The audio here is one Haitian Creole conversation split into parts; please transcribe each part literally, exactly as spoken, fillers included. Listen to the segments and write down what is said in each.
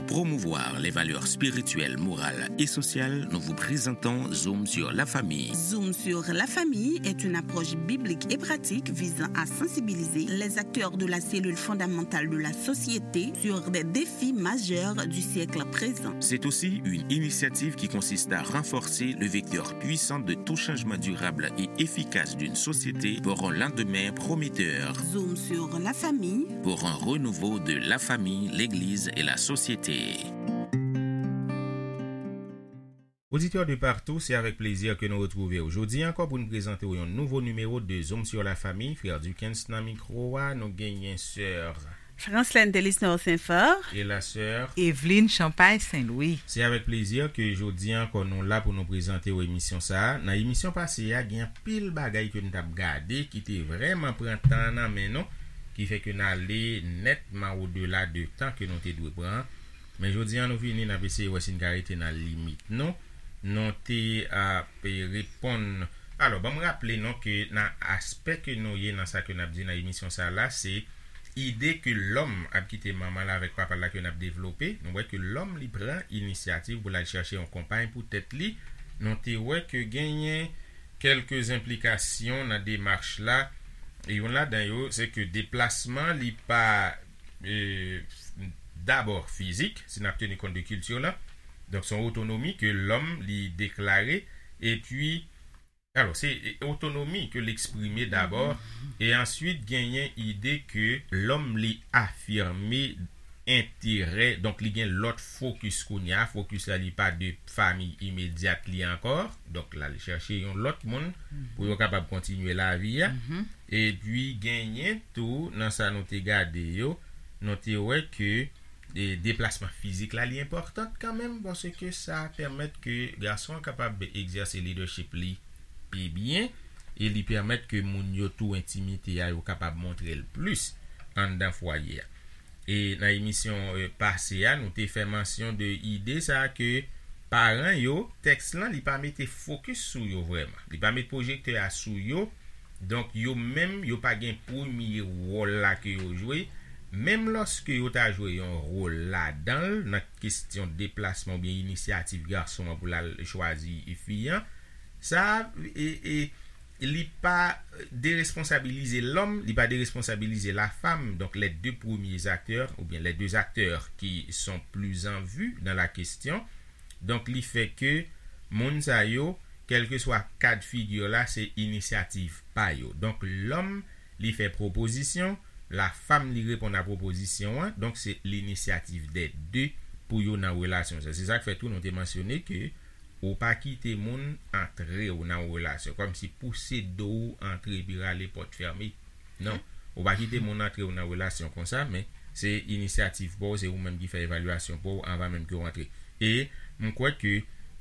promouvoir les valeurs spirituelles, morales et sociales, nous vous présentons Zoom sur la famille. Zoom sur la famille est une approche biblique et pratique visant à sensibiliser les acteurs de la cellule fondamentale de la société sur des défis majeurs du siècle présent. C'est aussi une initiative qui consiste à renforcer le vecteur puissant de tout changement durable et efficace d'une société pour un lendemain prometteur. Zoom sur la famille. Pour un renouveau de la famille, l'Église et la société. Oditè de partou, se avèk plezi ke nou retwouve w jodi ankò pou n prezante w yon nouvo nimewo de Zoom sur la famille. Frè Duckens nan mikwo a, nou genyen sè Franslène Delisnor Senfò. E la sè Evelyne Champagne Saint-Louis. Se avèk plezi ke jodi ankò nou la pou nou prezante w emisyon sa a. Nan emisyon pase a, gen anpil bagay ke n t ap gade ki te vrèman pran tan nan men nou, ki fè ke n ale nètman odela de tan ke nou te dwe pran. Men jodi a, nou vini, n ap eseye wè si n ka rete nan limit nou. Nou te ap reponn. Alò, ban m raple nou ke nan aspè ke nou ye nan sa ke n ap di nan emisyon sa la, se ide ke lòm ap kite manman l avèk papa l la ke n ap devlope. Nou wè ke lòm li pran inisyativ pou l al chèche yon konpay pou tèt li. Nou te wè ke genyen kèlke enplikasyon nan demach la. E youn ladan yo, se ke deplasman li pa, e, dabò fizik, si n ap teni kont de kilti la. Donk, se yon otonomi ke lòm li deklare. Epi, alò, se, e, otonomi ke l eksprime dabò. E answit, genyen ide ke lòm li afime enterè, donk li gen lòt fokis kounye a. Fokis la, li pa de fanmi imedyat li ankò. Donk, l al chèche yon lòt moun pou yo kapab kontinye lavi a. Epi, genyen tou, nan sa nou te gade yo, nou te wè ke, e, deplasman fizik la, li enpòtan kanmenm, paske sa pèmèt ke gason an kapab egzèse leadership li pi byen, e li pèmèt ke moun yo tou entimite a, yo kapab montre l plis anndan fwaye a. E nan emisyon, e, pase a, nou te fè mansyon de ide sa a ke paran yo, tèks lan, li pa mete fokis sou yo vrèman. Li pa met pwojektè a sou yo. Donk, yo menm, yo pa gen premye wòl la ke yo jwe. Menm lòske yo ta jwe yon wòl ladan l, nan kesyon deplasman oubyen inisyativ gason an pou l al chwazi fi an, sa, e, e, li pa deresponsabilize lòm, li pa deresponsabilize la femme. Donc, les deux premiers acteurs, ou bien les deux acteurs qui sont plus en vue dans la question. Donk, li fè ke moun sa yo, kèlkeswa kad figi la, se inisyativ pa yo. Donk, lòm, li fè pwopozisyon, la femme, li reponn a pwopozisyon an. Donk, se l'initiative des deux pou yo nan relasyon sa. Se sa k fè tou nou te mansyone ke ou pa kite moun antre w nan yon relasyon, kòmsi pouse do w antre epi rale pòt fèmen. Non, ou pa kite moun antre w nan relasyon konsa, men se inisyativ pa w, se ou menm ki fè evalyasyon pa w anvan menm ke w antre. E m kwè ke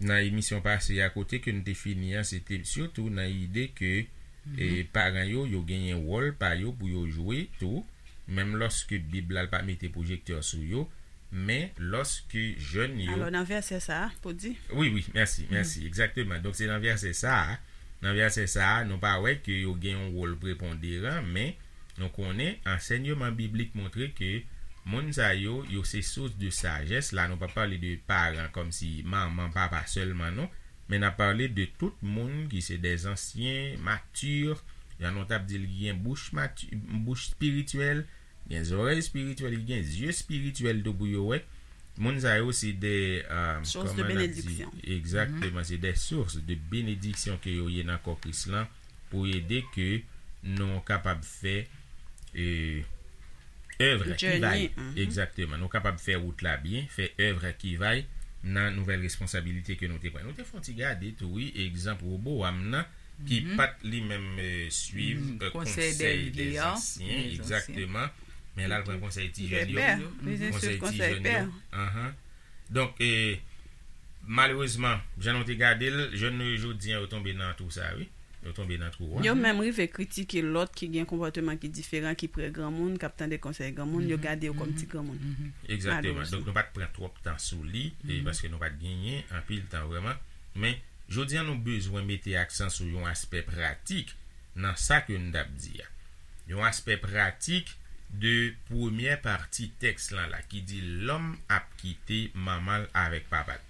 nan emisyon pase a, kote ke n te fini an, se te sitou nan ide ke, e, paran yo, yo genyen wòl pa yo pou yo jwe tou, menm lòske Bib la pa mete pwojektè sou yo, men lòske jèn yo. Alò, nan vèsè sa a, pou di. Wi, wi, mèsi, mèsi, egzakteman. Donk, se nan vèsè sa a, nan vèsè sa a, nou pa wè ke yo gen yon wòl preponderan, men nou konnen ansèyman biblik montre ke moun sa yo, yo se sous de sajès. La, nou pa pale de paran kòmsi manman, papa sèlman, non. Men n ap pale de tout moun ki se des anciens, matures, jan nou t ap di l, ki gen bouch mati-, bouch espirityèl, gen zòrèy espirityèl, ki gen zye espirityèl tou pou yo wè. Moun sa yo se de, euh, source de bénédiction. Egzakteman, se de source de bénédiction ke yo ye nan kò Kris lan pou ede ke nou kapab fè, euh, œuvre ki va, egzakteman, nou kapab fè wout la byen, fè œuvre ki va nan nouvèl responsabilite ke nou te pran. Nou te fè yon ti gade tou, wi, egzanp Wobowam nan, ki pa t li menm, euh, swiv, euh, konsèy dè vye a, egzakteman, men l al pran konsèy ti jèn yo, konsèy ti jèn yo. Anhan. Donk, eh, malerezman, jan nou te gade l, jèn nou yo jodi an, yo tonbe nan twou sa, wi. Yo tonbe nan twou a. Yo menm rive kritike lòt ki gen konpòteman ki diferan, ki prè granmoun, k ap tande konsèy granmoun, yo gade yo kòm ti granmoun. Egzakteman. Donk, nou pa t pran twòp tan sou li, e, paske nou pa t genyen anpil tan vrèman. Men, jodi an, nou bezwen mete aksan sou yon aspè pratik nan sa ke n t ap di a. Yon aspè pratik de premyè pati tèks lan la ki di lòm ap kite manman l avèk papa l.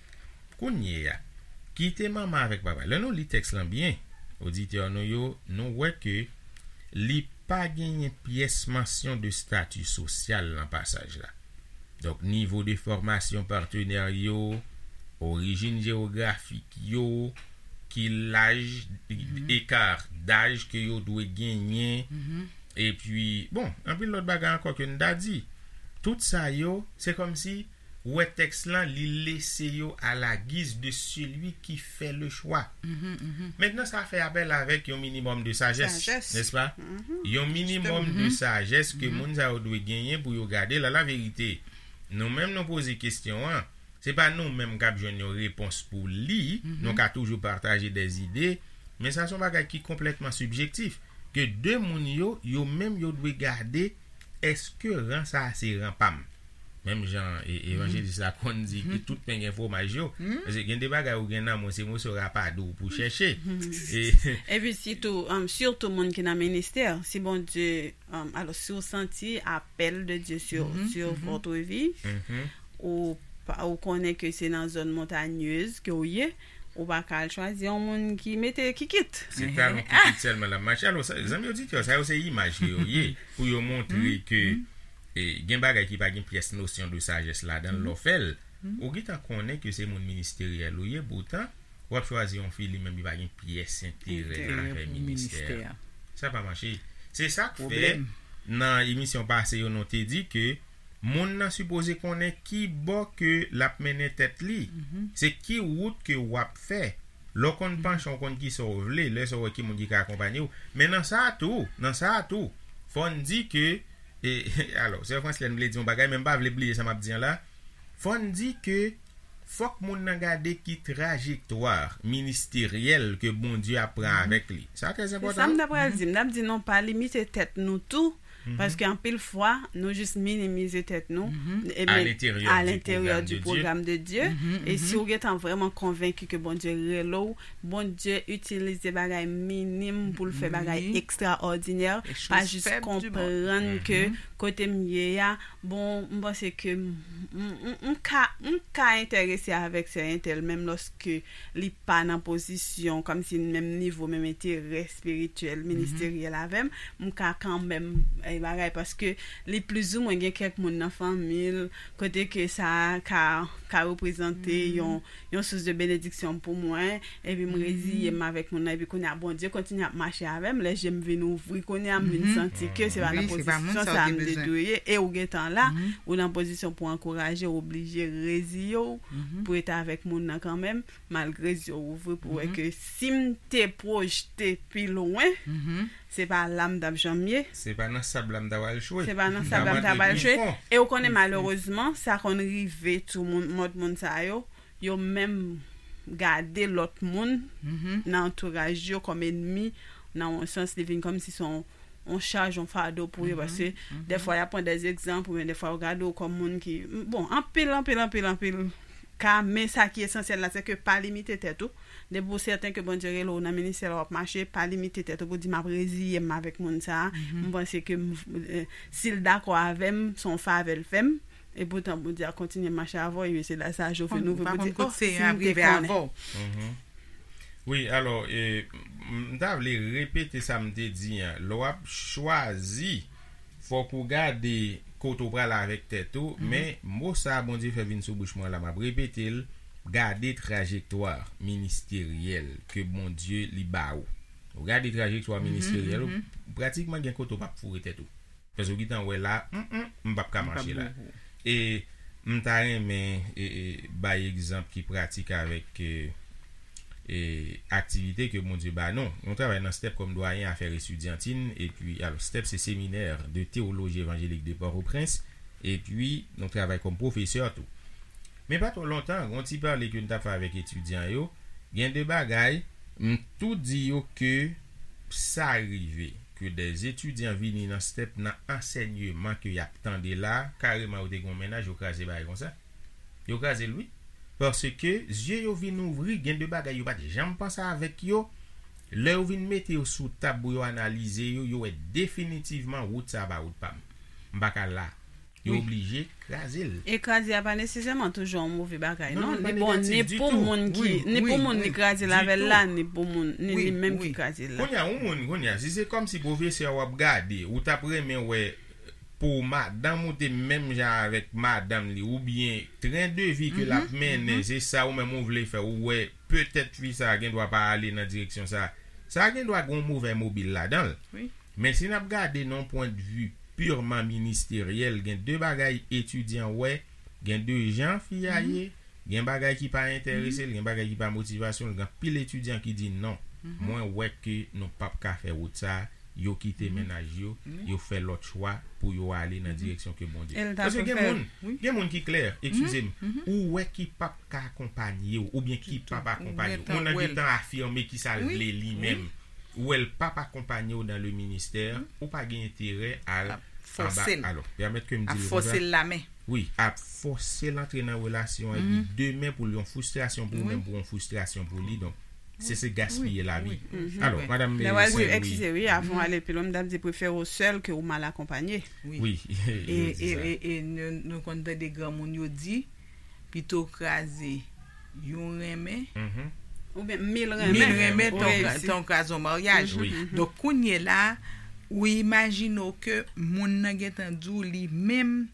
Kounye a, kite manman avèk papa l. Lè nou li tèks lan byen, oditè nou yo, nou wè ke li pa genyen pyès mansyon de stati sosyal nan pasaj la. Donk, nivo de fòmasyon patnè yo, orijin jewografik yo, ki laj, eka daj ke yo dwe genyen, epi, bon, anpil lòt bagay ankò ke n ta di. Tout sa yo, se kòmsi, ou wè tèks lan, li lese yo à la guise de celui qui fait le choix. Mentnan, sa fè apèl avèk yon minimòm de sajès, nèspa? Yon minimòm de sajès ke moun sa yo dwe genyen pou yo gade la, la verite. Nou menm, nou poze kesyon an. Se pa nou menm k ap jwenn yon repons pou li, nou ka toujou pataje dè zide, men sa se yon bagay ki konplètman sibjektif, ke de moun yo, yo menm yo dwe gade, èske ran sa a se ran pa m? Menm jan e, evanjelis la konn di ke tout pen gen fwomaj yo, paske gen de bagay ou gen nan men w, se moso rapadou ou pou chèche. E, Epi sitou, um, sitou moun ki nan ministè, si Bondye, um, alò, si w santi apèl de Dye sur, sur votre vie, ou, pa- ou konnen ke se nan zòn montanyez ke w ye, ou pa ka al chwazi yon moun ki mete kikit. Se talon kikit sèlman l ap mache. Alò, sa, zanmi oditè, sa yo se imaj ke yo ye, pou yo montre ke, e, gen bagay ki pa gen pyès nosyon de sajès ladan l, lè w fè l, ou gentan konnen ke se moun ministeryèl ou ye, poutan, w ap chwazi yon fi, li menm, li pa gen pyès enterè nan afè ministè a. Sa pa mache. Se sa k fè, nan emisyon pase yo, nou te di ke moun nan sipoze konnen ki bò ke l ap mennen tèt li. Se ki wout ke w ap fè. Lè w konn panche, w konn kisa w vle, lè sa w wè ki moun ki ka akonpanye w. Men nan sa a tou, nan sa a tou, fò n di ke, e, alò, sè Franslèn vle di yon bagay, men m pa vle bliye sa m ap di an la. Fò n di ke fòk moun nan gade ki trajektwa ministeryèl ke Bondye ap pran avèk li. Sa trè enpòtan. Se sa m ta pral di. M t ap di non, pa limite tèt nou tou, paske anpil fwa, nou jis minimize tèt nou, e à men- l'intérieur à du l'intérieur programme du de Dieu. Programme de Dieu. E si ou gentan vrèman konvenki ke Bondye rele w, Bondye itilize bagay minim pou l fè bagay ekstraòdinè, pa jis konprann ke kote m ye a, bon, m panse ke m, m, m, m ka, m ka enterese avèk sè entèl, menm lòske li pa nan pozisyon, kòmsi menm nivo, menm enterè espirityèl, ministeryèl avè m, m ka kanmenm, e, bagay, paske li plizoumwen gen kèk moun nan fanmi l, kote ke sa ka, ka reprezante yon, yon sous de benediksyon pou mwen, epi m reziye m avèk moun nan, epi kounye a, Bondye kontinye ap mache avè m, lè je m vin ouvri, kounye a, m vin santi ke se pa nan pozisyon sa a m te dwe ye, e ou gentan la, ou nan pozisyon pou ankouraje, ou oblije reziye w, pou rete avèk moun nan kanmenm, malgre zye w ouvri pou wè ke si m te pwojte pi lwen, se pa la m t ap janm ye. Se pa nan sab la m ta pral chwe. Se pa nan sab la m ta pral chwe. E ou konnen, malerezman, sa konn rive tou moun, mòd moun sa yo, yo menm gade lòt moun nan antouraj yo kòm ènmi, nan yon sans, li vin kòmsi se yon, yon chaj, yon fado pou yo, paske dèfwa, y ap pran dè egzanp, oubyen dèfwa, yo gade w kòm moun ki, bon, anpil, anpil, anpil, anpil ka, men sa ki esansyèl la, se ke pa limite tèt ou. Depi w sèten ke Bondye rele w nan ministè la, w ap mache, pa limite tèt ou pou di, "M ap reziye m avèk moun sa a." M panse ke m, eh, si l dakò avè m, se yon favè l fè m. Epoutan, Bondye a kontinye mache avè w, e se la sa a Jovin ouvri pou di, "Oh, si m te konnen." Wi, alò, e, m, m ta vle repete sa m te di an. Lè w ap chwazi, fòk ou gade kote w prale avèk tèt ou, men mo sa a Bondye fè vin sou bouch mwen la, m ap repete l, gade trajektwa ministeryèl ke Bondye li ba ou. Ou gade trajektwa ministeryèl ou, pratikman gen kote w p ap foure tèt ou. Paske w gentan wè la, mm, mm, m p ap ka mache la. E m ta renmen, e, e, bay egzanp ki pratik avèk, e, e, aktivite ke Bondye ba nou. Nou travay nan stèp kòm dwayen afè estidyantin, epi, alò, stèp se Séminaire de théologie évangélique de Port-au-Prince, epi nou travay kòm pwofesè tou. Men pa twò lontan, gen yon ti pale ke n t ap fè avèk etidyan yo, gen de bagay, m tou di yo ke sa rive ke dè etidyan vini nan stèp nan ansèyman ke y ap tande la, kareman yo te gen yon mennaj, yo kraze bagay konsa. Yo kraze l, wi. Paske zye yo vin ouvri, gen de bagay yo pa t janm panse avèk yo. Lè yo vin mete yo sou tab pou yo analize yo, yo wè definitivman wout sa a pa wout pa m. M pa ka la. Yo oblije kraze l. E kraze a pa nesesèman toujou yon move bagay, non. Li bon ni pou moun ki, ni pou moun li kraze l avè l la, ni pou moun, ni li menm ki kraze l la. Kounye a, yon moun, kounye a, si se kòmsi pwofesè w ap gade, ou t ap renmen wè pou madanm ou te menm jan avèk madanm li, oubyen tren de vi ke l ap mennen, se sa ou menm ou vle fè, ou wè petèt fi sa a gen dwa pa ale nan direksyon sa a. Sa a gen dwa gen yon move mobil ladan l. Men si n ap gade nan yon pwendvi pirman ministeryèl, gen de bagay etidyan wè, gen de jan fi a ye, gen bagay ki pa enterese l, gen bagay ki pa motivasyon l, gen anpil etidyan ki di non. Mwen wè ke nou p ap ka fè wout sa a, yo kite mennaj yo, yo fè lòt chwa pou yo ale nan direksyon ke Bondye. Paske gen moun, gen moun ki klè, eskize m, ou wè ki p ap ka akonpanye w, oubyen ki p ap akonpanye w. Moun nan gentan afime ki sa l vle li menm. Ou wè l p ap akonpanye w dans le ministère, ou pa gen enterè al anba. Alò, pèmèt ke m di l konsa. Wi, ap fòse l antre nan relasyon epi demen pou l yon fristrasyon pou ou menm, pou yon fristrasyon pou li. Donk, se, se gaspiye lavi. Alò, madanm, lè w al di, eskize, wi, avan w ale pi lwen, m t ap di prefere w sèl ke w mal akonpanye. Wi. E, e, e, e nou, nou konn tande granmoun yo di, pito kraze yon renmen, oubyen mil renmen, mil renmen, tan w kraze yon maryaj. Donk, kounye la, ou imajine w ke moun nan gentan di w li menm,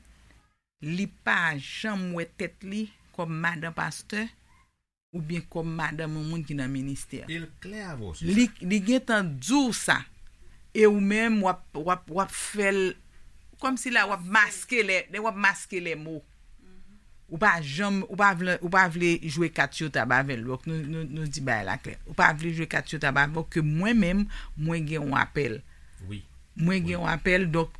li pa janm wè tèt li kòm madan pastè, oubyen kòm madanm yon moun ki nan ministè. E l klè avè w sou sa. Li, li gentan di w sa. E ou menm, w ap, w ap, w ap fè l, kòmsi la, w ap maske lè, w ap maske lè mo. Ou pa janm, ou pa vle, ou pa vle jwe kat sou tab avè l. Donk, nou, nou, nou di bagay la klè. Ou pa vle jwe kat sou tab avè l, ke mwen menm, mwen gen yon apèl. Wi. Mwen gen yon apèl, donk,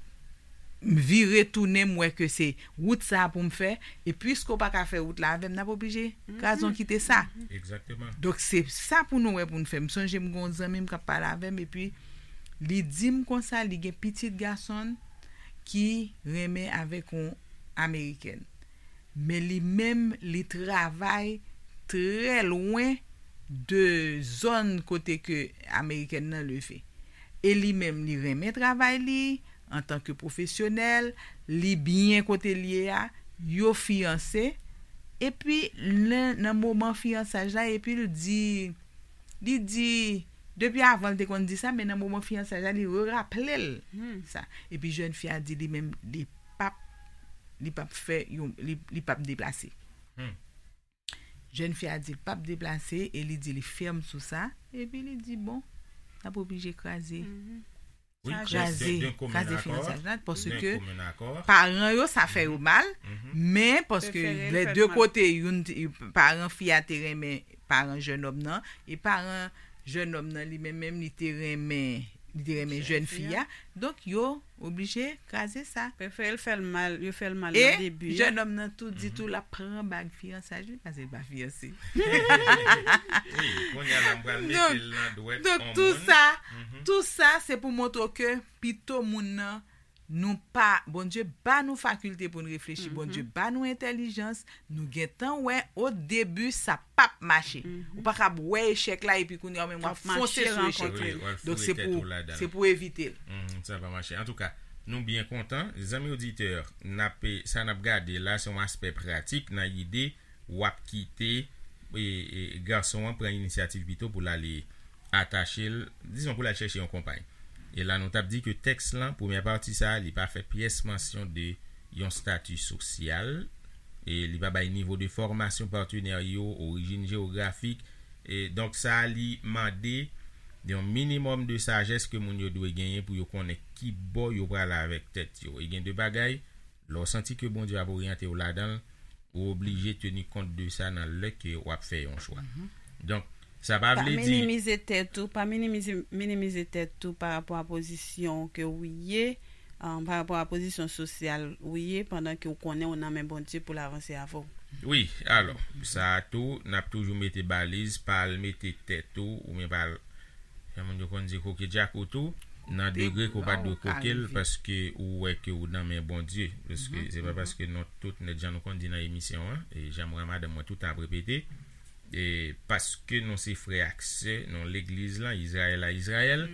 m vire tounen, m wè ke se wout sa a pou m fè, e piske w pa ka fè wout la avè m, n ap oblije kraze yon kite sa. Donk, se sa pou nou wè pou n fè. M sonje m gen yon zanmi m k ap pale avè m, epi li di m konsa, li gen pitit gason l ki renmen avèk yon amerikèn. Men li menm, li travay trè lwen de zòn kote ke amerikèn nan leve. E li menm, li renmen travay li antanke pwofesyonèl, li byen kote l ye a, yo fiyanse. Epi, nan, nan moman fiyansaj la, epi l di, li di, depi avan l te konn di sa, men nan moman fiyansaj la, li reraple l sa. Epi jèn fi a di li menm, li p ap, li p ap fè yon, li, li p ap deplase. Jèn fi a di l p ap deplase e li di li fèm sou sa. Epi li di, bon, n ap oblije kraze. Kraze, kraze fiyansaj la, paske paran yo, sa fè yo mal, men paske lè de kote, youn, paran fi a te renmen paran jènòm nan, e paran jènòm nan, li menm menm, li te renmen, li te renmen jèn fi a. Donk, yo oblije kraze sa. Prefere l fè l mal, yo fè l mal nan debi a. E jènòm nan tou di tou l ap pran bag fiyansaj li, paske l pa fiyanse. Wi, kounye a la, m pral mete l nan dwèt yon moun. Donk, tou sa, tou sa, se pou montre w ke pito moun nan, nou pa, Bondye ba nou fakilte pou n reflechi, Bondye ba nou entèlijans, nou gentan wè, o debi, sa p ap mache. Ou pa kab wè echèk la, epi kounye a, w menm w ap fonse sou echèk la. Donk, se pou, se pou evite l. Sa pa mache. Antouka, nou byen kontan. Zanmi oditè, n ap, sa n ap gade la, se yon aspè pratik nan ide w ap kite, e, e, gason an pran inisyativ pito pou l ale atache l, dizon pou l al chèche yon konpay. E la nou t ap di ke tèks lan, premyè pati sa a, li pa fè pyès mansyon de yon stati sosyal, e li pa bay nivo de fòmasyon patnè yo, orijin jewografik, e donk sa a li mande yon minimòm de sajès ke moun yo dwe genyen pou yo konnen ki bò yo prale avèk tèt yo. E gen de bagay, lè w santi ke Bondye ap oryante w ladan l, ou oblije teni kont de sa nan lè ke w ap fè yon chwa. Donk, sa pa vle di. Pa minimize tèt ou, pa minimize, minimize tèt ou pa rapò a pozisyon ke w ye, pa rapò a pozisyon sosyal ou ye, pandan ke w konnen w nan men Bondye pou l avanse avè w. Wi, alò, sa a tou, n ap toujou mete baliz, pa al mete tèt ou, oubyen pa al Jan moun yo konn di koke djakout ou, nan degre ke w pa dwe koke l, paske ou wè ke ou nan men Bondye. Paske se pa paske nou tout nèt, jan nou konn di nan emisyon an, e jan mwen madanm mwen tout tan ap repete, e paske nou se frè ak sè, nou legliz lan, Izrayèl a Izrayèl,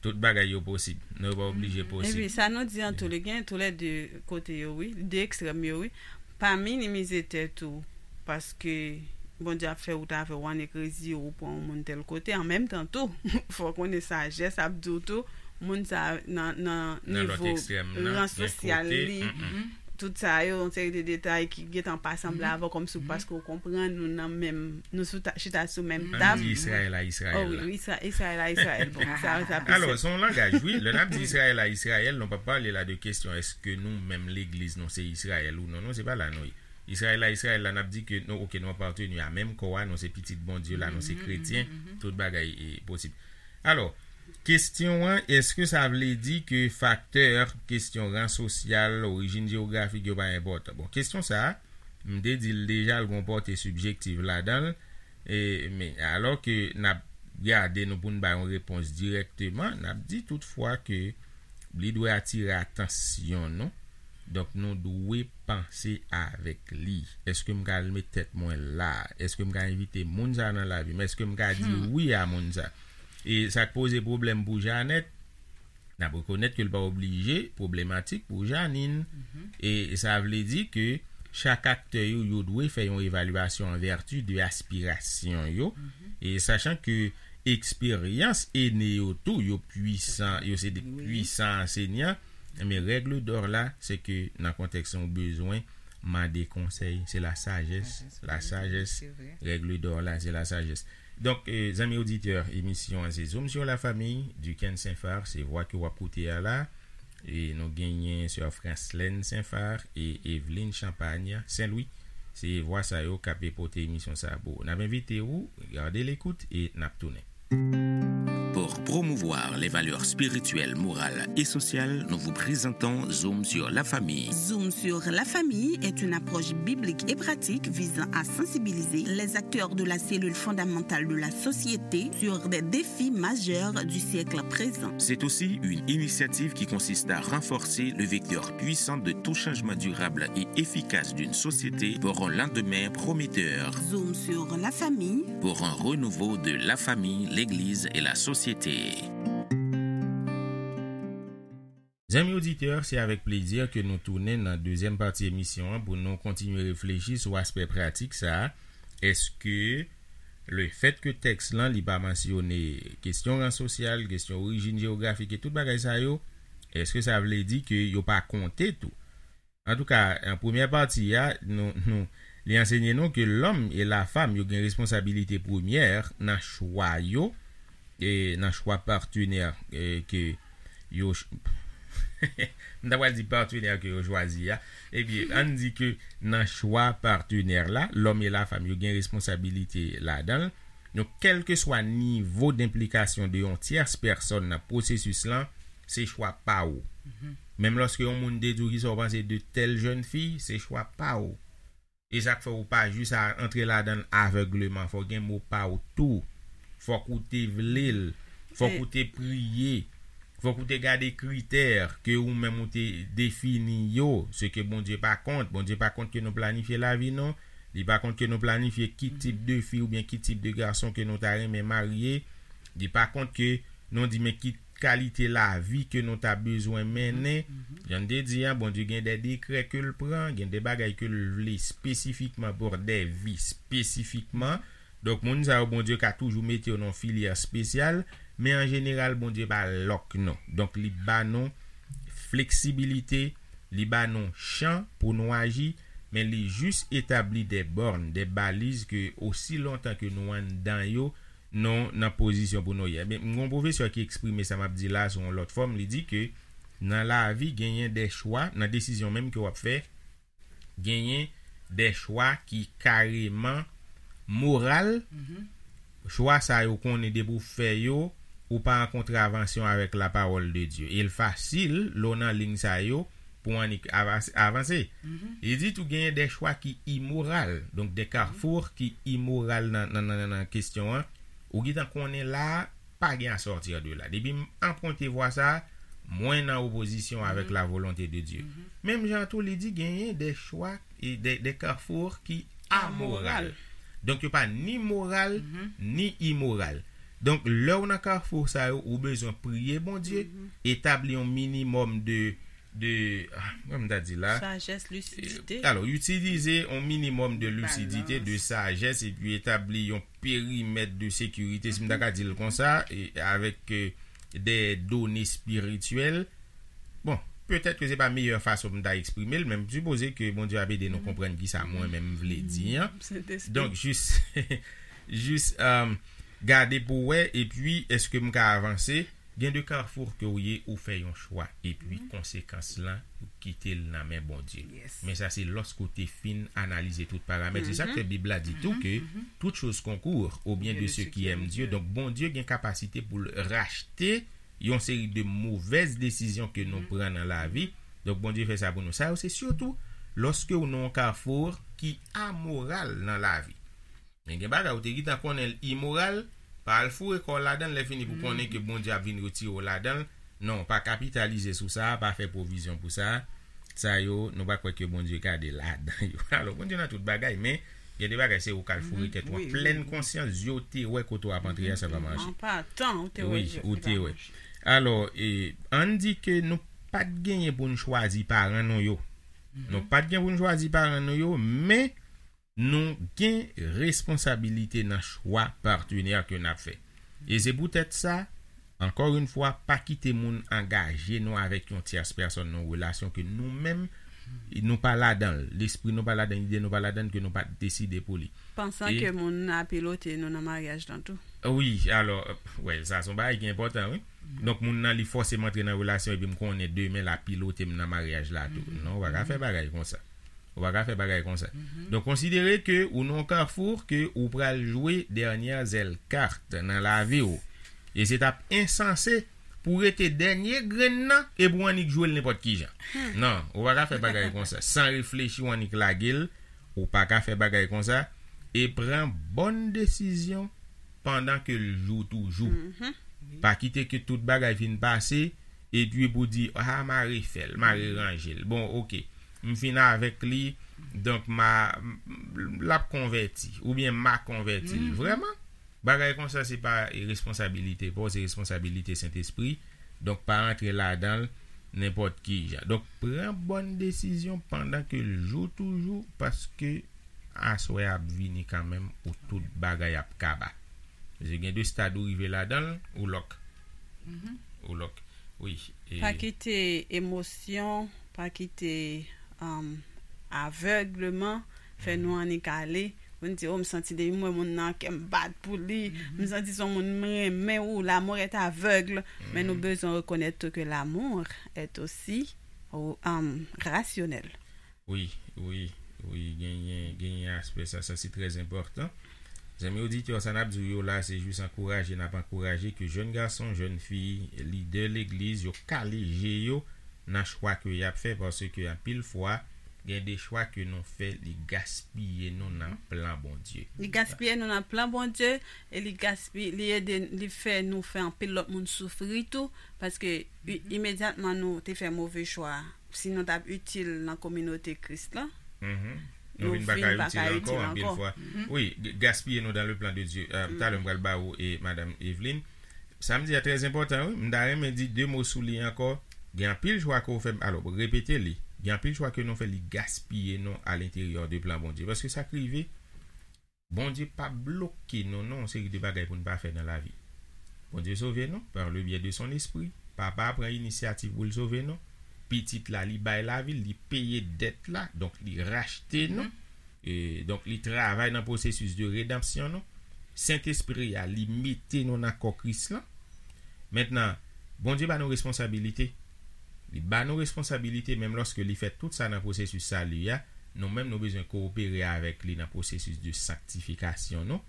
Tout bagay yo posib. Nou pa oblije posib. Epi sa nou di an tou le gen tou le de kote yo wi, de ekstrèm yo wi. Pa minimize tèt ou paske Bondye ap fè wout avè w annik reziye w pran yon moun tèl kote. An menm tan tou, fò w konnen sajès ap di w tou, moun sa nan, nan nivo ran sosyal li, tout sa yo, yon seri de detay ki gentan pa sanble avè w, kòmsi w paske w konprann nou nan menm, nou sou ta, chita sou menm tab. Di Izrayèl a Izrayèl. Oh, wi, Izrayèl a Izrayèl. Bon, sa, sa plis. Alò, se yon langaj, wi. Lè n ap di Izrayèl a Izrayèl, nou pa pale la de kesyon èske nou menm legliz nou se Izrayèl ou non, non, se pa la nou ye. Izrayèl a Izrayèl la, n ap di ke nou, oke, nou apateni a menm kò a, nou se pitit Bondye la, nou se kretyen, tout bagay e posib. Alò, kesyon an, èske sa vle di ke faktè, kesyon ran sosyal, orijin jewografik yo pa enpòtan? Bon, kesyon sa a, m te di l deja, l gon pòte sibjektiv ladan l, e, men, alò ke n ap gade nou pou n bay yon repons dirèkteman, n ap di toutfwa ke li dwe atire atansyon nou. Donk, nou dwe panse avèk li. Èske m ka al met tèt mwen la? Èske m ka envite moun sa nan lavi m? Èske m ka di wi a moun sa? E sa k poze pwoblèm pou Janèt, n ap rekonèt ke l pa oblije pwoblematik pou Janine. E sa vle di ke chak aktè yo, yo dwe fè yon evalyasyon an vèti de aspirasyon yo. E sachan ke eksperyans ene yo tou, yo pwisan, yo se de pwisan ansenyan. Men règle d'or la, se ke nan kontèks ou bezwen mande konsèy, se la sajès, la sajès, règle d'or la, se la sajès. Donk, eh, zanmi oditè, emisyon an se Zoom sur la famille, Duquesne Saint-Phar, se vwa ke w ap koute a la. E nou genyen sè Franslène Saint-Phar e Evelyne Champagne Saint-Louis. Se vwa sa yo k ap pote emisyon sa a pou ou. N ap envite ou, gade lekout e n ap tounen. Pour promouvoir les valeurs spirituelles, morales et sociales, nous vous présentons Zoom sur la famille. Zoom sur la famille est une approche biblique et pratique visant à sensibiliser les acteurs de la cellule fondamentale de la société sur des défis majeurs du siècle présent. C'est aussi une initiative qui consiste à renforcer le vecteur puissant de tout changement durable et efficace d'une société pour un lendemain prometteur. Zoom sur la famille. Pour un renouveau de la famille, l'Église et la société. Zanmi oditè, se avèk plezi ke nou tounen nan dezyèm pati emisyon an pou nou kontinye reflechi sou aspè pratik sa a. Èske lefèt ke tèks lan li pa mansyone kesyon ran sosyal, kesyon orijin jewografik e tout bagay sa yo, èske sa vle di ke yo pa konte tou? Antouka, an premyè pati a, nou, nou, li ansenye nou ke lòm e lafanm yo gen responsabilite premyè nan chwa yo, e nan chwa patnè e ke yo ch- m ta pral di patnè ke yo chwazi a. Ebyen, ann di ke nan chwa patnè la, lòm e lafanm yo gen responsabilite ladan l. Donk, kèlkeswa nivo denplikasyon de yon tyès pèsòn nan pwosesis lan, se chwa pa ou. Menm lòske yon moun te di w kisa w panse de tèl jèn fi, se chwa pa ou. E sa k fè ou pa jis a antre ladan l avègleman. Fò gen mo pa ou tou. Fòk ou te vle l. Fòk ou te priye. Fòk ou te gade kritè ke ou menm ou te defini yo. Se ke Bondye pa kont. Bondye pa kont ke nou planifye lavi nou. Li pa kont ke nou planifye ki tip de fi oubyen ki tip de gason ke nou ta renmen marye. Li pa kont ke nou di men ki kalite lavi ke nou ta bezwen mennen. Jan n te di a, Bondye gen de dekrè ke l pran, gen de bagay ke l vle espesifikman pou de vi espesifikman. Donk, moun sa yo, Bondye ka toujou mete yo nan filyè espesyal, men an jeneral, Bondye pa lòk nou. Donk, li ba nou fleksibilite, li ba nou chan pou nou aji, men li jis etabli de bòn, de baliz ke osi lontan ke nou anndan yo, nou nan pozisyon pou nou ye. Men, m gon pwofesè ki eksprime sa m ap di la sou yon lòt fòm, li di ke nan lavi genyen de chwa, nan desizyon menm ke w ap fè, genyen de chwa ki kareman moral. Chwa sa yo konnen depi w fè yo, ou pa an kontravansyon avèk lapawòl de Dye. E l fasil, lè w nan liy sa yo, pou w annik avanse. Li di tou genyen de chwa ki imoral. Donk, de kafou ki imoral nan, nan, nan, nan kesyon an. Ou gentan konnen la, pa gen a sòti de la. Depi m anprante vwa sa, mwen nan opozisyon avèk la volonte de Dye. Menm jan tou, li di genyen de chwa, e de, de kafou ki amoral. Donk, yo pa ni moral, ni imoral. Donk, lè w nan kafou sa yo, ou bezwen priye Bondye, etabli yon minimòm de, de, ah, kòman m ta di la? Sajès, lisidite. Alò, itilize yon minimòm de lisidite, de sajès, epi etabli yon perimèt de sekirite, si m ta ka di l konsa, e avèk, euh, de done espirityèl. Bon, petèt ke se pa meyè fason pou m ta eksprime l, men m sipoze ke Bondye ap ede nou konprann ki sa mwen menm m vle di an. Donk, jis, jis, um, gade pou wè, epi èske m ka avanse? Gen de kafou ke w ye, ou fè yon chwa, epi konsekans lan, ou kite l nan men Bondye. Men sa se lòske w te fin analize tout paramèt. Se sa k fè Bib la di tou ke toute chose concourt au bien de ceux qui aiment Dieu. Donk, Bondye gen kapasite pou l rachte yon seri de movèz desizyon ke nou pran nan lavi. Donk, Bondye fè sa pou nou. Sa yo, se sitou lòske w nan yon kafou ki amoral nan lavi. Men gen bagay ou te gentan konnen l imoral, pa al foure kò w ladan l, lè fini pou konnen ke Bondye ap vin retire w ladan l. Non, pa kapitalize sou sa, pa fè pwovizyon pou sa. Sa yo, nou pa kwè ke Bondye gade ladan yo. Alò, Bondye nan tout bagay, men gen de bagay se ou k al foure tèt ou an plèn konsyans, zye w te wè kote w ap antre a, sa pa mache. An patan, ou te wè. Wi, ou te wè. Alò, e, ann di ke nou pa t genyen pou n chwazi paran nou yo. Nou pa t gen pou n chwazi paran nou yo, men nou gen responsabilite nan chwa patnè ke n ap fè. E se poutèt sa, ankò yon fwa, pa kite moun angaje nou avèk yon tyès pèsòn nan yon relasyon ke nou menm, nou pa ladan l, lespri nou pa ladan l, ide nou pa ladan l, ke nou pa t deside pou li. Pansan ke moun nan ap pilote nou nan maryaj lan tou. Wi, alò, wè, sa se yon bagay ki enpòtan, wi. Donk, moun nan, li fòseman antre nan relasyon epi m konnen demen l ap pilote m nan maryaj la tou. Non, ou pa ka fè bagay konsa. Ou pa ka fè bagay konsa. Donk, konsidere ke ou nan yon kafou ke ou pral jwe dènyè zèl kat nan lavi w. E se t ap ensanse pou w rete dènye grenn nan epi w annik jwe l nenpòt ki jan. Non, ou pa ka fè bagay konsa. San reflechi, w annik lage l, ou pa ka fè bagay konsa. E pran bòn desizyon pandan ke l jou toujou. Pa kite ke tout bagay fin pase, epi pou di, ah, m a refè l, m a reranje l. Bon, oke. M fin avèk li, donk m a, m, l ap konvèti, oubyen m a konvèti l. Vrèman? Bagay konsa se pa, e, responsabilite pa w, se responsabilite Sentespri. Donk, pa antre ladan l nenpòt ki jan. Donk, pran bòn desizyon pandan ke l jou toujou, paske aswè ap vini kanmenm ou tout bagay ap kaba. Paske gen de stad ou rive ladan l, ou lòk. Ou lòk. Wi. E pa kite emosyon, pa kite, um, avègleman fè nou annik ale. Pou n di, oh, m santi depi m wè moun nan, kè m bat pou li. M santi se yon moun m renmen, ou l'amour est aveugle. Men nou bezwen rekonèt tou ke l'amour est aussi, um, rationnel. Wi, wi, wi, genyen, genyen aspè sa, sa se trè enpòtan. Zanmi oditè, sa n ap di w yo la, se jis ankouraje, n ap ankouraje ke jèn gason, jèn fi, lidè legliz, yo kale je yo nan chwa ke y ap fè, paske anpil fwa, gen de chwa ke nou fè, li gaspiye nou nan plan Bondye. Li gaspiye nou nan plan Bondye, e li gaspiye, li ede, li fè nou fè anpil lòt moun soufri tou, paske i-, imedyatman nou te fè move chwa, si nou t ap itil nan kominote Kris la, nou vin pa ka itil ankò, anpil fwa. Wi, g-, gaspiye nou dans le plan de Dieu. Euh, talè m pral ba ou e Madam Evelyn. Sa m di a trè enpòtan, wi. M ta renmen di de mo sou li ankò. Gen anpil chwa ke w fè, alò, repete li. Gen anpil chwa ke nou fè, li gaspiye nou à l'intérieur de plan Bondye. Paske sa k rive, Bondye pa bloke nou nan yon seri de bagay pou n pa fè nan lavi. Bondye sove nou par le biais de son esprit. Papa a pran inisyativ pou l sove nou. Pitit la, li bay lavi l, li peye dèt la, donk li rachte nou. E, donk, li travay nan pwosesis de redanmsyon nou. Sentespri a, li mete nou nan kò Kris lan. Mentnan, Bondye ba nou responsabilite. Li ba nou responsabilite, menm lòske li fè tout sa nan pwosesis sali a, nou menm nou bezwen kowopere avèk li nan pwosesis de sanktifikasyon nou.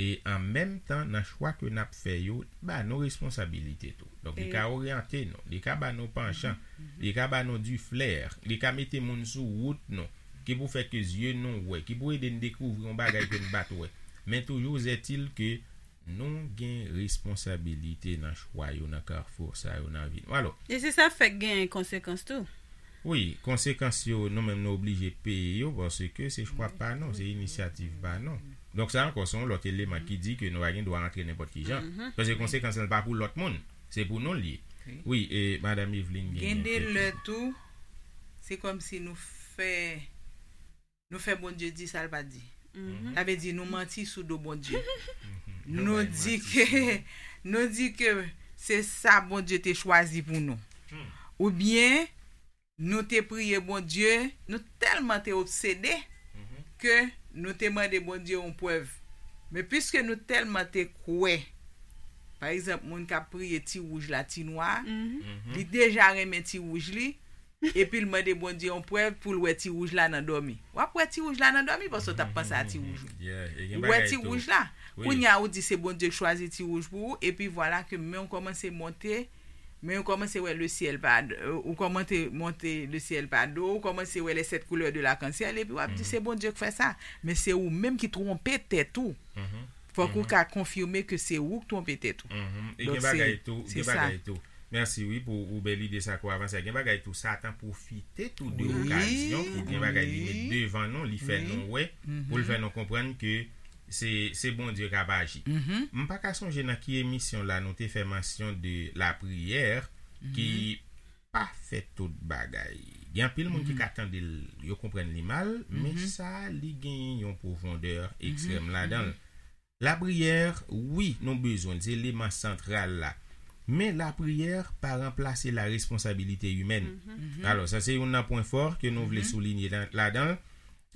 E an menm tan, nan chwa ke n ap fè yo, li ba nou responsabilite tou. Donk, li ka oryante nou, li ka ba nou panchan, li ka ba nou du flair, li ka mete moun sou wout nou, ki pou fè ke zye nou wè, ki pou ede n dekouvri yon bagay ke n pa t wè. Men toujou est-il ke nou gen responsabilite nan chwa yo, nan kafou sa yo nan vi nou. Alò. E se sa fèk gen konsekans tou. Wi, konsekans yo, nou menm nou oblije peye yo, paske se chwa pa nou, se inisyativ pa nou. Donk, sa ankò, se yon lòt eleman ki di ke nou pa gen dwa antre nenpòt ki jan. Paske konsekans lan pa pou lòt moun, se pou nou l ye. Wi, e Madanm Eveline gen Gen de lè tou, se kòmsi nou fè nou fè Bondye di sa l pa di. Sa vle di nou manti sou do Bondye. Nou di ke nou di ke se sa Bondye te chwazi pou nou. Oubyen nou te priye Bondye, nou tèlman te obsede ke nou te mande Bondye yon prèv. Men piske nou tèlman te kwè, pa egzanp, moun k ap priye ti wouj la, ti nwa, li deja renmen ti wouj li, epi l mande Bondye yon prèv pou l wè ti wouj la nan dòmi. W ap wè ti wouj la nan dòmi paske w t ap panse a ti wouj ou. Ou wè ti wouj la. Kounye a ou di se Bondye k chwazi ti wouj pou ou, epi vwala ke men w kòmanse monte, men w kòmanse wè le ciel pa, ou kòmanse monte le ciel pa do, ou kòmanse wè les sept couleurs de l'arc-en-ciel, epi w ap di se Bondye k fè sa. Men se ou menm ki twonpe tèt ou. Fòk ou ka konfime ke se ou k twonpe tèt ou. E gen bagay tou, gen bagay tou. Mèsi wi pou ou bèl ide sa ke w avanse a. Gen bagay tou Satan pwofite tou de okazyon pou gen bagay li met devan nou, li fè nou wè, pou l fè nou konprann ke se se Bondye k ap aji. M pa ka sonje nan ki emisyon la nou te fè mansyon de lapriyè ki pa fè tout bagay. Gen anpil moun ki ka tande l, yo konprann li mal, men sa li genyen yon pwofondè ekstrèm ladan l. Lapriyè, wi, nou bezwen l, se eleman santral la. Men lapriyè pa ranplase la responsabilité humaine. Alò, sa se youn nan pwen fò ke nou vle soulinye ladan l.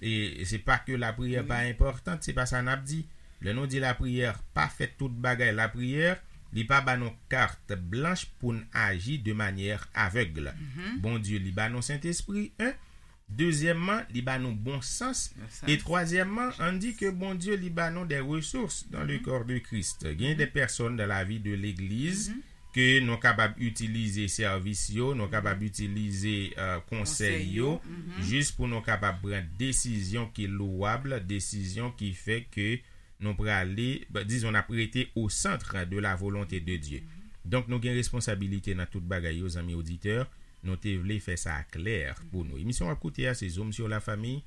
E se pa ke lapriyè pa enpòtan, se pa sa n ap di. Lè nou di lapriyè pa fè tout bagay, lapriyè, li pa ba nou kat blanch pou n aji de manyè avèg. Bondye, li ba nou Sentespri, en. Dezyèmman, li ba nou bon sans. E twazyèmman, ann di ke Bondye, li ba nou des ressources dans le corps de Christ. Gen de pèsòn dans la vie de legliz ke nou kapab itilize sèvis yo, nou kapab itilize konsèy yo, jis pou nou kapab pran desizyon ki lowab, desizyon ki fè ke nou prale, dizon, n ap rete au centre de la volonté de Dieu. Donk, nou gen responsabilite nan tout bagay yo, zanmi oditè. Nou te vle fè sa klè pou nou. Emisyon w ap koute a, se Zoom sur la famille.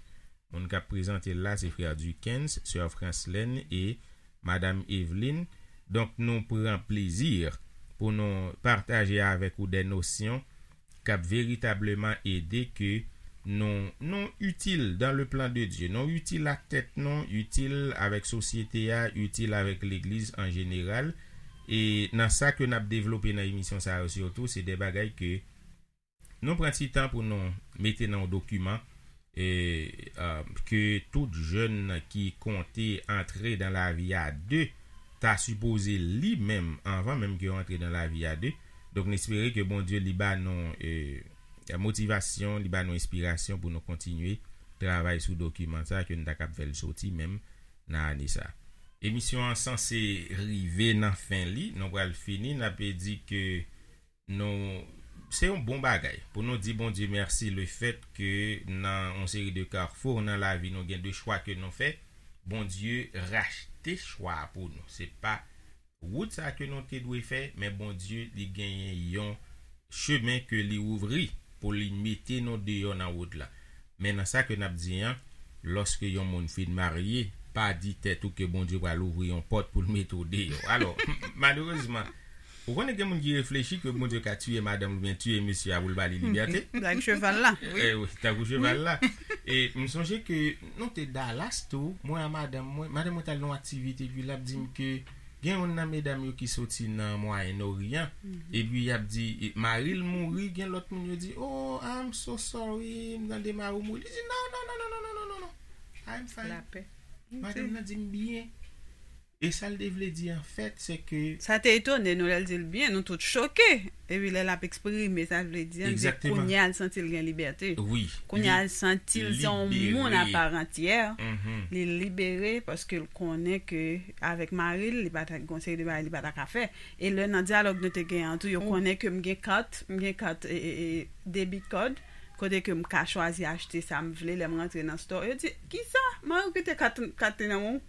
Moun k ap prezante l la, se frè Duckens, sè Franslène e Madanm Eveline. Donk, nou pran plezi pou nou pataje avèk ou de nosyon k ap veritableman ede ke nou, nou itil dans le plan de Dieu. Nou itil ak tèt nou, itil avèk sosyete a, itil avèk legliz an jeneral. E nan sa ke n ap devlope nan emisyon sa yo sitou, se de bagay ke nou pran ti tan pou nou mete nan yon dokiman e ke tout jèn ki konte antre dans la vie à deux ta sipoze li menm anvan menm ke yo antre dans la vie à deux. Donk, n espere ke Bondye li ba nou e, motivasyon, li ba nou enspirasyon pou nou kontinye travay sou dokiman sa ke n ta kab fè l soti menm nan ane sa. Emisyon an sanse rive nan fen li, nou pral fini, n ap di ke nou se yon bon bagay pou nou di Bondye mèsi le fèt ke nan yon seri de kafou nan lavi nou gen de chwa ke nou fè, Bondye rachte chwa a pou nou. Se pa wout sa ke nou te dwe fè, men Bondye li genyen yon chemen ke li ouvri pou li mete nou deyò nan wout la. Men nan sa ke n ap di an, lòske yon moun fin marye, pa di tèt ou ke Bondye pral ouvri yon pòt pou l mete w deyò. Alò, malerezman, ou konnen gen moun ki reflechi ke Bondye ka tiye madanm li oubyen tiye mesye a pou l ba li libète. Tankou cheval la. Eh, wi, tankou cheval la. E m sonje ke nou te Dallas tou, mwen a madanm mwen, madanm mwen t al nan yon aktivite, epi l ap di m ke gen youn nan medam yo ki soti nan Mwayen Oryan, epi y ap di, e, mari l mouri, gen lòt moun yo di, "Oh, I'm so sorry, m tande mari w mouri." Li di, "Non, non, non, non, non, non, non, non, non, I'm fine." Lapè. Madanm nan di m byen. E sa l te vle di, anfèt, se ke Sa te etone nou lè l di l byen, nou tout choke. Epi lè l ap eksprime sa l vle di an, se kounye a l santi l gen libète. Wi. Kounye a l santi l se yon moun aparantyè. Li libere paske l konnen ke avèk mari l, li pa ta gen yon seri de bagay li pa ta ka fè. E lè nan dyalòg nou te gen an tou, yo konnen ke m gen kat, m gen kat e, e, e, debit card, kote ke m ka chwazi achte sa m vle lè m rantre nan store. Yo di, "Kisa? Mari w kite kat, kat li nan men w?"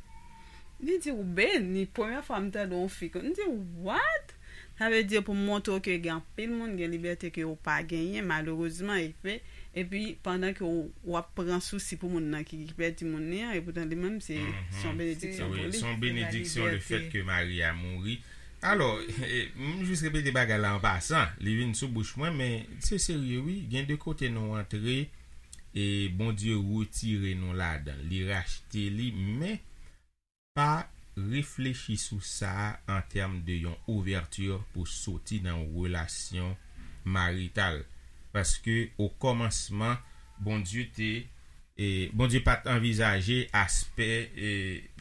Li di, "Ou beni, premyè fwa m tande yon fi kon." M di, "What?" Sa vle di pou m montre w ke gen anpil moun gen libète ke w pa genyen, malerezman, epi Epi, pandan ke w, w ap pran sousi pou moun nan ki, ki pèdi moun li an, epoutan li menm, se, se yon benediksyon pou li. Se yon benediksyon lefèt ke Maria mouri. Alò, m jis repete bagay la an pasan, li vin sou bouch mwen, men se serye wi, gen de kote nou antre, e Bondye retire nou ladan l, li rachte li, men pa reflechi sou sa a an tèm de yon ouvèti pou soti nan yon relasyon marital. Paske o kòmansman, Bondye te, e, Bondye pa t anvizaje aspè, e,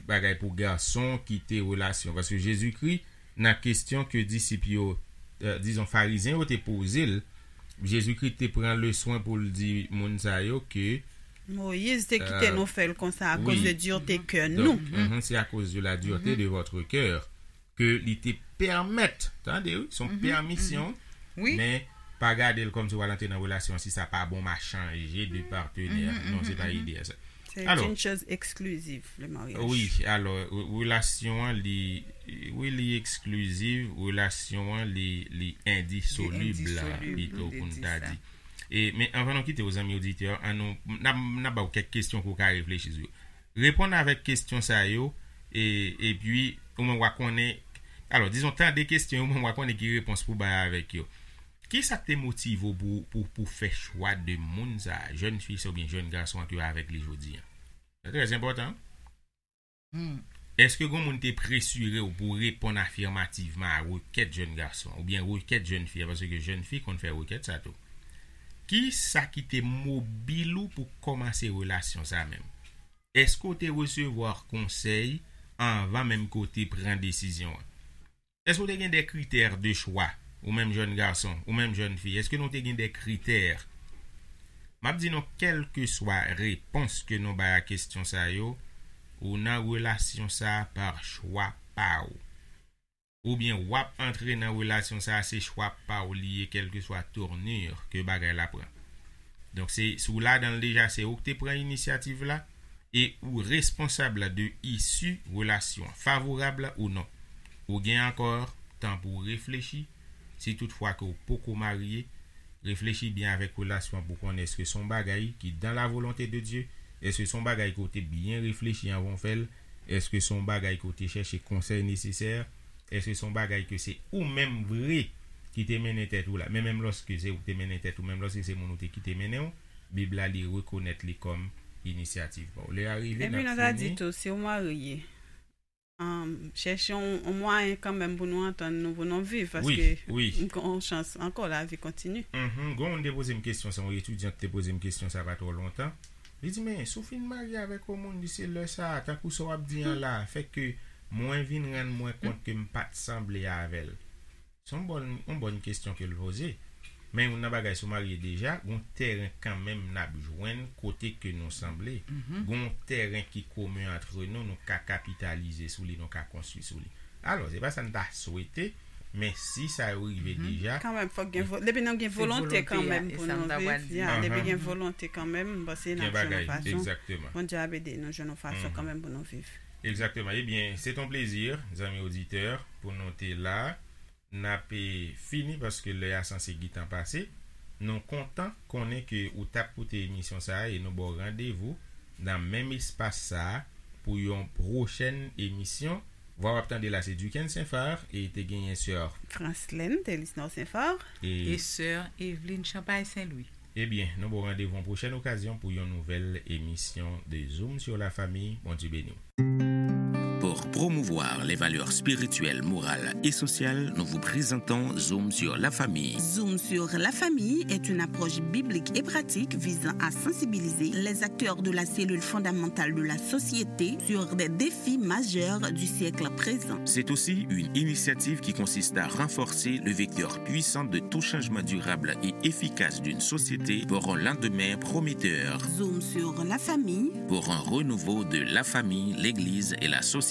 bagay pou gason kite relasyon. Paske Jezikri, nan kesyon ke disip yo, e, dizon, Farizyen yo te poze l, Jezikri te pran le swen pou l di moun sa yo ke Moyiz te kite nou fè l konsa akoz de dirte kè nou. Mhm, c'est à cause de la dureté de votre cœur ke li te pèmèt, tande wi, se yon pèmisyon, men pa gade l kòmsi w al antre nan relasyon, si sa pa bon, m a chanje de patenè. Non, se pa ide a sa. C'est une chose exclusive, le mariage. Wi, alò, re-, relasyon an, li, wi, li eksklizif, relasyon an, li, li endisolib, pito pou n ta di. E, men anvan nou kite w, zanmi oditè, an nou, n ap, n ap ba w kèk kesyon pou w ka reflechi sou yo. Reponn avèk kesyon sa yo, e, epi, ou menm w a konnen, alò, dizon, tande kesyon yo, ou menm w a konnen ki repons pou bay avèk yo. Kisa k te motive w pou, pou, pou fè chwa de moun sa a, jèn fi sa oubyen jèn gason an ke w avèk li jodi an? Se trè enpòtan. Èske gen moun te presire w pou w reponn afimativman a rekèt jèn gason an, oubyen rekèt jèn fi a, paske jèn fi konn fè rekèt sa tou? Kisa ki te mobil ou pou w kòmanse relasyon sa a menm? Èske w te resevwa konsèy anvan menm ke w te pran desizyon an? Èske w te gen de kritè de chwa, ou menm jèn gason, ou menm jèn fi? Èske nou te gen de kritè? M ap di nou, kèlkeswa repons ke nou bay a kesyon sa yo, ou nan relasyon sa a pa chwa pa w. Oubyen w ap antre nan relasyon sa a, se chwa pa w li ye, kèlkeswa tournure ke bagay la pran. Donk, se, si w ladan l deja, se ou k te pran inisyativ la, e ou responsab de isi relasyon an, favorab ou non. Ou gen ankò tan pou w reflechi, si toutfwa ke w poko marye, reflechi byen avèk relasyon an pou konnen èske se yon bagay ki dans la volonté de Dieu, èske se yon bagay ke w te byen reflechi anvan w fè l, èske se yon bagay ke w te chèche konsèy nesesè, èske se yon bagay ke se ou menm vre ki te mennen tèt ou la, men menm lòske se ou ki te mennen tèt ou, menm lòske se moun ou te kite mennen w, Bib la, li rekonèt li kòm inisyativ pa w. Lè a rive, n ap fini. Epi nou ta di tou, si w marye, um, chèche yon, yon mwayen kanmenm pou nou antann nou, pou nou viv, paske wi, wi, gen yon chans ankò, lavi kontini. Mhm. Gen yon moun te poze m kesyon sa, yon etidyant te poze m kesyon sa pa twò lontan. Li di, men, si w fin marye avèk yon moun, li se lè sa a, tankou sa w ap di an la, fè ke mwen vin rann mwen kont ke m pa t sanble avè l. Se yon bòn, yon bòn kesyon ke l poze. Men youn nan bagay, si w marye deja, gon tèren kanmenm n ap jwenn kote ke nou sanble. Gon tèren ki komen antre nou, nou ka kapitalize sou li, nou ka konstwi sou li. Alò, se pa sa n ta swete, men si sa yo rive deja, kanmenm, fòk gen vo-, depi nou gen volonte kanmenm pou nou viv, ya, depi gen volonte kanmenm, m panse n ap jwenn yon fason. Bondye ap ede nou jwenn yon fason kanmenm pou nou viv. Egzakteman. Ebyen, se t on plezi, zanmi oditè, pou nou te la. N ap, e, fini paske lè a sanse gentan pase. Nou kontan konnen ke ou t ap koute emisyon sa a e nou ba w randevou nan menm espas sa a pou yon pwochèn emisyon. Vwa w ap tande la se Duckens Saint-Phar e te genyen sè Franslène Telisnor Saint-Phar e sè Eveline Champagne Saint-Louis. Ebyen, nou ba w randevou yon pwochèn okazyon pou yon nouvèl emisyon de Zoom sur la famille. Bondye beni w. Pour promouvoir les valeurs spirituelles, morales et sociales, nous vous présentons Zoom sur la famille. Zoom sur la famille est une approche biblique et pratique visant à sensibiliser les acteurs de la cellule fondamentale de la société sur des défis majeurs du siècle présent. C'est aussi une initiative qui consiste à renforcer le vecteur puissant de tout changement durable et efficace d'une société pour un lendemain prometteur. Zoom sur la famille. Pour un renouveau de la famille, l'Église et la société.